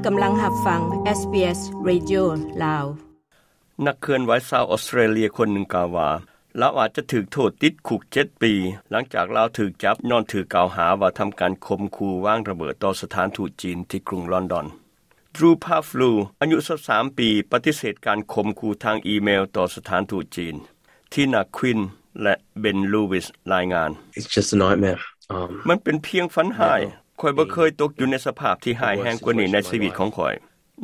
ກຳລັງຮັບຟັງ SBS Radio ລາວ. ນັກເຄື່ອນໄຫວຊາວອອສເຕຣເລຍຄົນໜຶ່ງກ່າວວ່າ ລາວອາດຈະຖືກໂທດຕິດຄຸກເຈັດປີ ຫຼັງຈາກລາວຖືກຈັບຍ້ອນຖືກກ່າວຫາວ່າທຳການຂົ່ມຂູ່ວາງລະເບີດຕໍ່ສະຖານທູດຈີນທີ່ກຸງລອນດອນ. Drew Pavlou ອາຍຸຊາວສາມປີ ປະຕິເສດການຂົ່ມຂູ່ທາງອີເມວຕໍ່ສະຖານທູດຈີນ. Tina Quinn ແລະ Ben Lewis ລາຍງານ. It's just a nightmare. Um, ມັນເປັນພຽງຝັນຮ້າຍ. Never. ຂ້ອຍບໍ່ເຄີຍຕົກຢູ່ໃນສະພາບທີ່ຮ້າຍແຮງກວ່ານີ້ໃນຊີວິດຂອງຂ້ອຍ.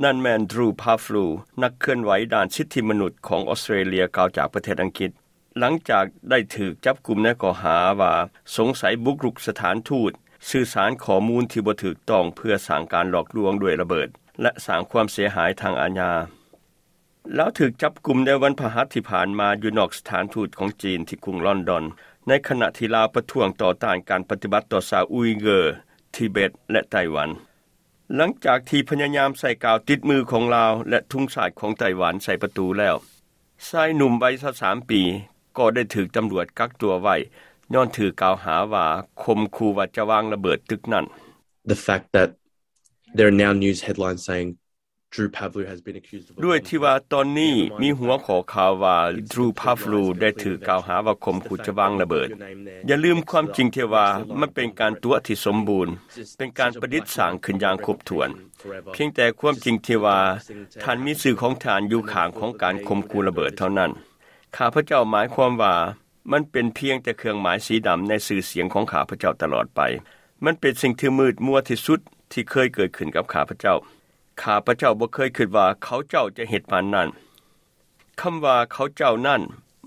ນັ້ນແມ່ນ Drew Pavlou ນັກເຄື່ອນໄຫວດ້ານສິດທິມະນຸດຂອງອອສເຕຣເລຍ ກ່າວຈາກປະເທດອັງກິດ ຫຼັງຈາກໄດ້ຖືກຈັບກຸມໃນຂໍ້ຫາວ່າສົງໄສບຸກລຸກສະຖານທູດ, ສື່ສານຂໍ້ມູນທີ່ບໍ່ຖືກຕ້ອງເພື່ອສ້າງການຫຼອກລວງດ້ວຍລະເບີດ ແລະ ສ້າງຄວາມເສຍຫາຍທາງອາຍາ. ລາວຖືກຈັບກຸມໃນວັນພະຫັດທີ່ຜ່ານມາຢູ່ນອກສະຖານທູດຂອງຈີນທີ່ກຸງລອນດອນ ໃນຂະນະທີ່ລາວປະທ້ວງຕໍ່ຕ້ານການປະຕິບັດຕໍ່ຊາວອຸຍເກີ, ທິເບັດ ແລະ ໄຕ້ຫວັນ. ຫຼັງຈາກທີ່ພະຍາຍາມໃສ່ກາວຕິດມືຂອງລາວ ແລະ ທຸງຊາດຂອງໄຕ້ຫວັນໃສ່ປະຕູແລ້ວ, ຊາຍໜຸ່ມໄວຊາວສາມປີກໍໄດ້ຖືກຕຳຫຼວດກັກຕົວໄວ້ ຍ້ອນຖືກກ່າວຫາວ່າຂົ່ມຂູ່ວ່າຈະວາງລະເບີດຕຶກນັ້ນ. The fact that there are now news headlines saying Drew Pavlou has been accused of a ດ້ວຍທີ່ວ່າຕອນນີ້ມີຫົວຂໍ້ຂ່າວວ່າ Drew Pavlou ໄດ້ຖືກກ່າວຫາວ່າຂົ່ມຂູ່ຈະວາງລະເບີດ. ຢ່າລືມຄວາມຈິງທີ່ວ່າມັນເປັນການຕົວະທີ່ສົມບູນ, ເປັນການປະດິດສ້າງຂຶ້ນຢ່າງຄົບຖ້ວນ. ພຽງແຕ່ຄວາມຈິງທີ່ວ່າທ່ານມີຊື່ຂອງທ່ານຢູ່ຂ້າງຂອງການຂົ່ມຂູ່ລະເບີດເທົ່ານັ້ນ. ຂ້າພະເຈົ້າໝາຍຄວາມວ່າ ມັນເປັນພຽງແຕ່ເຄື່ອງໝາຍສີດຳໃນຊື່ສຽງຂອງຂ້າພະເຈົ້າຕະຫຼອດໄປ. ມັນເປັນສິ່ງທີ່ມືດມົວທີ່ສຸດທີ່ເຄີຍເກີດຂຶ້ນກັບຂ້າພະເຈົ້າ. ຂ້າພະເຈົ້າບໍ່ເຄີຍຄິດວ່າເຂົາເຈົ້າຈະເຮັດປານນັ້ນ. ຄຳວ່າເຂົາເຈົ້ານັ້ນ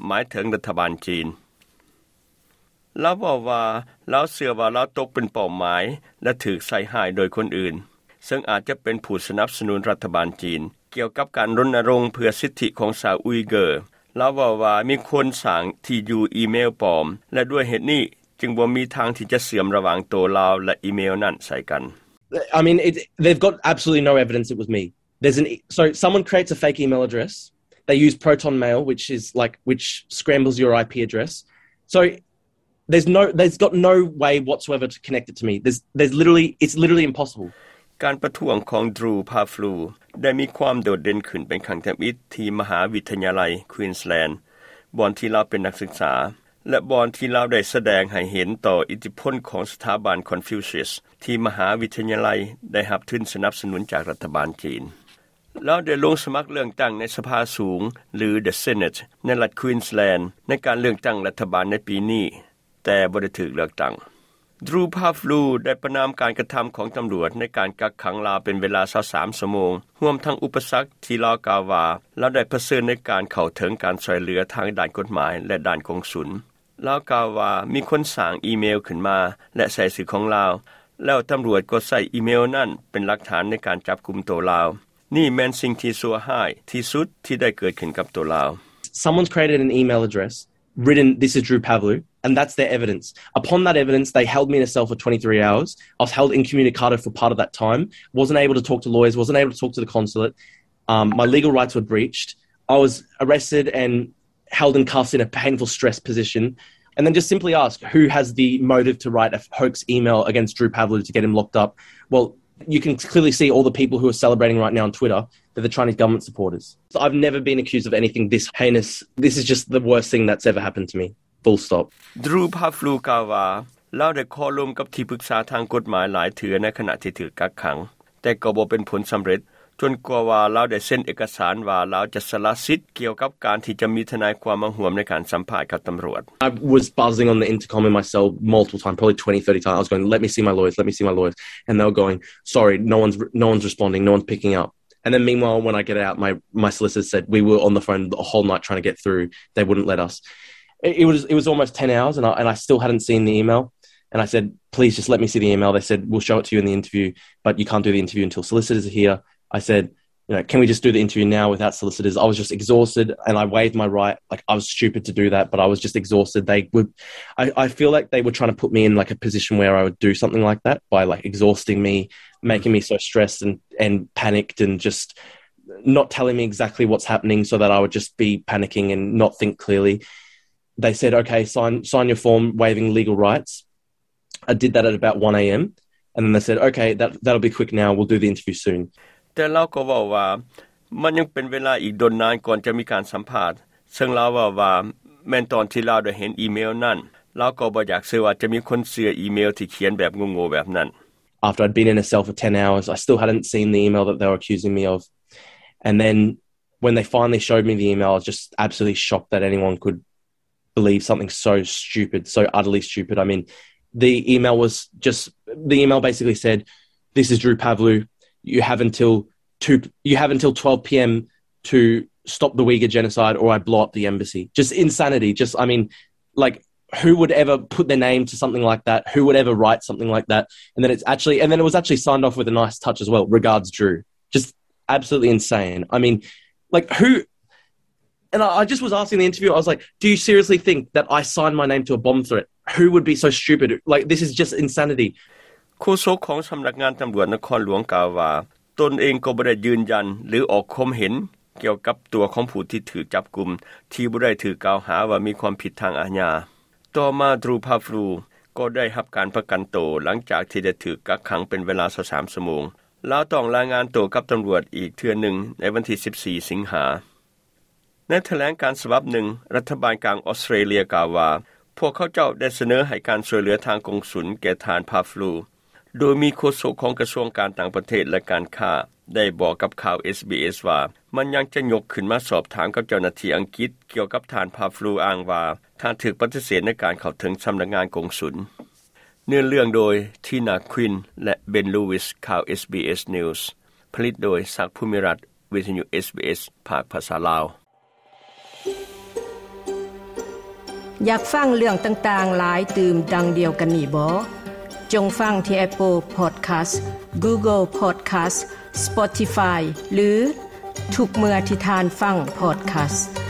ໝາຍເຖິງລັດຖະບານຈີນ. ລາວເວົ້າວ່າ ລາວເຊື່ອວ່າລາວຕົກເປັນເປົ້າໝາຍ ແລະ ຖືກໃສ່ຮ້າຍໂດຍຄົນອື່ນ, ເຊິ່ງອາດຈະເປັນຜູ້ສະໜັບສະໜູນລັດຖະບານຈີນ ກ່ຽວກັບການລົນນະລົງເພື່ອສິດທິຂອງຊາວອຸຍເກີ. ລາວເວົ້າວ່າມີຄົນສ້າງທີ່ຢູ່ອີເມວປອມ ແລະ ດ້ວຍເຫດນີ້ຈຶ່ງບໍ່ມີທາງທີ່ຈະເຊື່ອມລະຫວ່າງໂຕລາວ ແລະ ອີເມວນັ້ນໃສ່ກັນ. I mean, it, they've got absolutely no evidence it was me. There's an e- so someone creates a fake email address. They use Proton Mail, which is like which scrambles your IP address. So there's no there's got no way whatsoever to connect it to me. There's there's literally it's literally impossible. ການປະທ້ວງຂອງ Drew Pavlou ໄດ້ມີຄວາມໂດດເດັ່ນຂຶ້ນເປັນຄັ້ງທຳອິດທີ່ມະຫາວິທະຍາໄລ Queensland ບ່ອນທີ່ລາວເປັນນັກສຶກສາ ແລະ ບ່ອນທີ່ລາວໄດ້ສະແດງໃຫ້ເຫັນຕໍ່ອິດທິພົນຂອງສະຖາບັນ Confucius ທີ່ມະຫາວິທະຍາໄລໄດ້ຮັບທຶນສະໜັບສະໜູນຈາກລັດຖະບານຈີນ. ລາວໄດ້ລົງສະໝັກເລືອກຕັ້ງໃນສະພາສູງ ຫຼື The Senate ໃນລັດ Queensland ໃນການເລືອກຕັ້ງລັດຖະບານໃນປີນີ້, ແຕ່ບໍ່ໄດ້ຖືກເລືອກຕັ້ງ. Drew Pavlou ໄດ້ປະນາມການກະທຳຂອງຕຳຫຼວດໃນການກັກຂັງລາວເປັນເວລາຊາວສາມຊົ່ວໂມງ, ຮວມທັງອຸປະສັກທີ່ລາວກ່າວວ່າລາວໄດ້ປະເຊີນໃນການເຂົ້າເຖິງການຊ່ວຍເຫຼືອທາງດ້ານກົດໝາຍ ແລະ ດ້ານກົງສຸນ. ລາວກ່າວວ່າມີຄົນສ້າງອີເມວຂຶ້ນມາ ແລະ ໃສ່ຊື່ຂອງລາວ, ແລ້ວຕຳຫຼວດກໍໃຊ້ອີເມວນັ້ນເປັນຫຼັກຖານໃນການຈັບກຸມໂຕລາວ. ນີ້ແມ່ນສິ່ງທີ່ຊົ່ວຮ້າຍທີ່ສຸດທີ່ໄດ້ເກີດຂຶ້ນກັບໂຕລາວ. Someone's created an email address, written, "This is Drew Pavlou," and that's their evidence. Upon that evidence, they held me in a cell for twenty-three hours. I was held incommunicado for part of that time, wasn't able to talk to lawyers, wasn't able to talk to the consulate. Um, my legal rights were breached. I was arrested and held in cuffs in a painful, stressed position, and then just simply ask, "Who has the motive to write a hoax email against Drew Pavlou to get him locked up?" Well, you can clearly see all the people who are celebrating right now on Twitter. They're the Chinese government supporters. So I've never been accused of anything this heinous. This is just the worst thing that's ever happened to me. Full stop. Drew Pavlou ກ່າວວ່າ ລາວໄດ້ຂໍລົມກັບທີ່ປຶກສາທາງກົດໝາຍຫຼາຍເທື່ອໃນຂະນະທີ່ຖືກກັກຂັງ, ແຕ່ກໍບໍ່ເປັນຜົນສຳເລັດ, ຈົນກວ່າວ່າລາວໄດ້ເຊັນເອກະສານວ່າລາວຈະສະລະສິດກ່ຽວກັບການທີ່ຈະມີທະນາຍຄວາມມາຮ່ວມໃນການສຳພາດກັບຕຳຫຼວດ. I was buzzing on the intercom in my cell multiple times, probably twenty, thirty times. I was going, "Let me see my lawyers, let me see my lawyers." And they were going, "Sorry, no one's, no one's responding, no one's picking up." And then meanwhile, when I get out, my, my solicitor said, "We were on the phone the whole night trying to get through. They wouldn't let us." It, it was, it was almost ten hours, and I, and I still hadn't seen the email. And I said, "Please just let me see the email." They said, "We'll show it to you in the interview, but you can't do the interview until solicitors are here." I said, "You know, can we just do the interview now without solicitors?" I was just exhausted, and I waived my right. Like, I was stupid to do that, but I was just exhausted. They would, I, I feel like they were trying to put me in, like, a position where I would do something like that by, like, exhausting me, making me so stressed and, and panicked and just not telling me exactly what's happening so that I would just be panicking and not think clearly. They said, "Okay, sign, sign your form waiving legal rights." I did that at about one a.m. And then they said, "Okay, that, that'll be quick now. We'll do the interview soon." ແຕ່ລາວກໍເວົ້າວ່າ ມັນຍັງເປັນເວລາອີກດົນນານກ່ອນຈະມີການສຳພາດ, ເຊິ່ງລາວເວົ້າວ່າ ແມ່ນຕອນທີ່ລາວໄດ້ເຫັນອີເມວນັ້ນ, ລາວກໍບໍ່ຢາກເຊື່ອວ່າຈະມີຄົນເຊື່ອອີເມວທີ່ຂຽນແບບໂງ່ໆແບບນັ້ນ. After I'd been in a cell for ten hours, I still hadn't seen the email that they were accusing me of. And then when they finally showed me the email, I was just absolutely shocked that anyone could believe something so stupid, so utterly stupid. I mean, the email was just, the email basically said, "This is Drew Pavlou. You have until two, you have until twelve p.m. to stop the Uyghur genocide, or I blow up the embassy." Just insanity. Just, I mean, like, who would ever put their name to something like that? Who would ever write something like that? And then it's actually, and then it was actually signed off with a nice touch as well. "Regards, Drew." Just absolutely insane. I mean, like, who, and I, I just was asking the interviewer, I was like, "Do you seriously think that I signed my name to a bomb threat? Who would be so stupid? Like, this is just insanity." ໂຄສົກຂອງສຳນັກງານຕຳຫຼວດນະຄອນຫຼວງກ່າວວ່າ ຕົນເອງກໍບໍ່ໄດ້ຢືນຢັນ ຫຼື ອອກຄວາມເຫັນກ່ຽວກັບຕົວຂອງຜູ້ທີ່ຖືກຈັບກຸມ ທີ່ບໍ່ໄດ້ຖືກກ່າວຫາວ່າມີຄວາມຜິດທາງອາຍາ. ຕໍ່ມາ Drew Pavlou ກໍໄດ້ຮັບການປະກັນໂຕ ຫຼັງຈາກທີ່ໄດ້ຖືກກັກຂັງເປັນເວລາຊາວສາມຊົ່ວໂມງ. ລາວຕ້ອງລາຍງານໂຕກັບຕຳຫຼວດອີກເທື່ອໜຶ່ງໃນວັນທີສິບສີ່ ສິງຫາ. ໃນຖະແຫຼງການສະບັບໜຶ່ງ, ລັດຖະບານກາງອອສເຕຣເລັຍກ່າວວ່າ ພວກເຂົາເຈົ້າໄດ້ສະເໜີໃຫ້ການຊ່ວຍເຫຼືອທາງກົງສຸນແກ່ທ່ານ Pavlou, ໂດຍມີໂຄສົກຂອງກະຊວງການຕ່າງປະເທດ ແລະ ການຄ້າ ໄດ້ບອກກັບຂ່າວ ເອສບີເອສ ວ່າ ມັນຍັງຈະຍົກຂຶ້ນມາສອບຖາມກັບເຈົ້າໜ້າທີ່ອັງກິດກ່ຽວກັບທ່ານ Pavlou, ອ້າງວ່າທ່ານຖືກປະຕິເສດໃນການເຂົ້າເຖິງສຳນັກງານກົງສຸນ. ເນື້ອເລື່ອງໂດຍ Tina Quinn ແລະ Ben Lewis. ຂ່າວ ເອສບີເອສ News ຜະລິດໂດຍ ສັກ ພູມິລັດ, ວິທະຍຸ ເອສບີເອສ ພາກພາສາລາວ. ຢາກຟັງເລື່ອງຕ່າງໆຫຼາຍຕື່ມດັ່ງດຽວກັນນີ້ບໍ? ຈົ່ງຟັງທີ່ Apple Podcast, Google Podcast, Spotify ຫຼື ທຸກເມື່ອທີ່ທ່ານຟັງ podcast.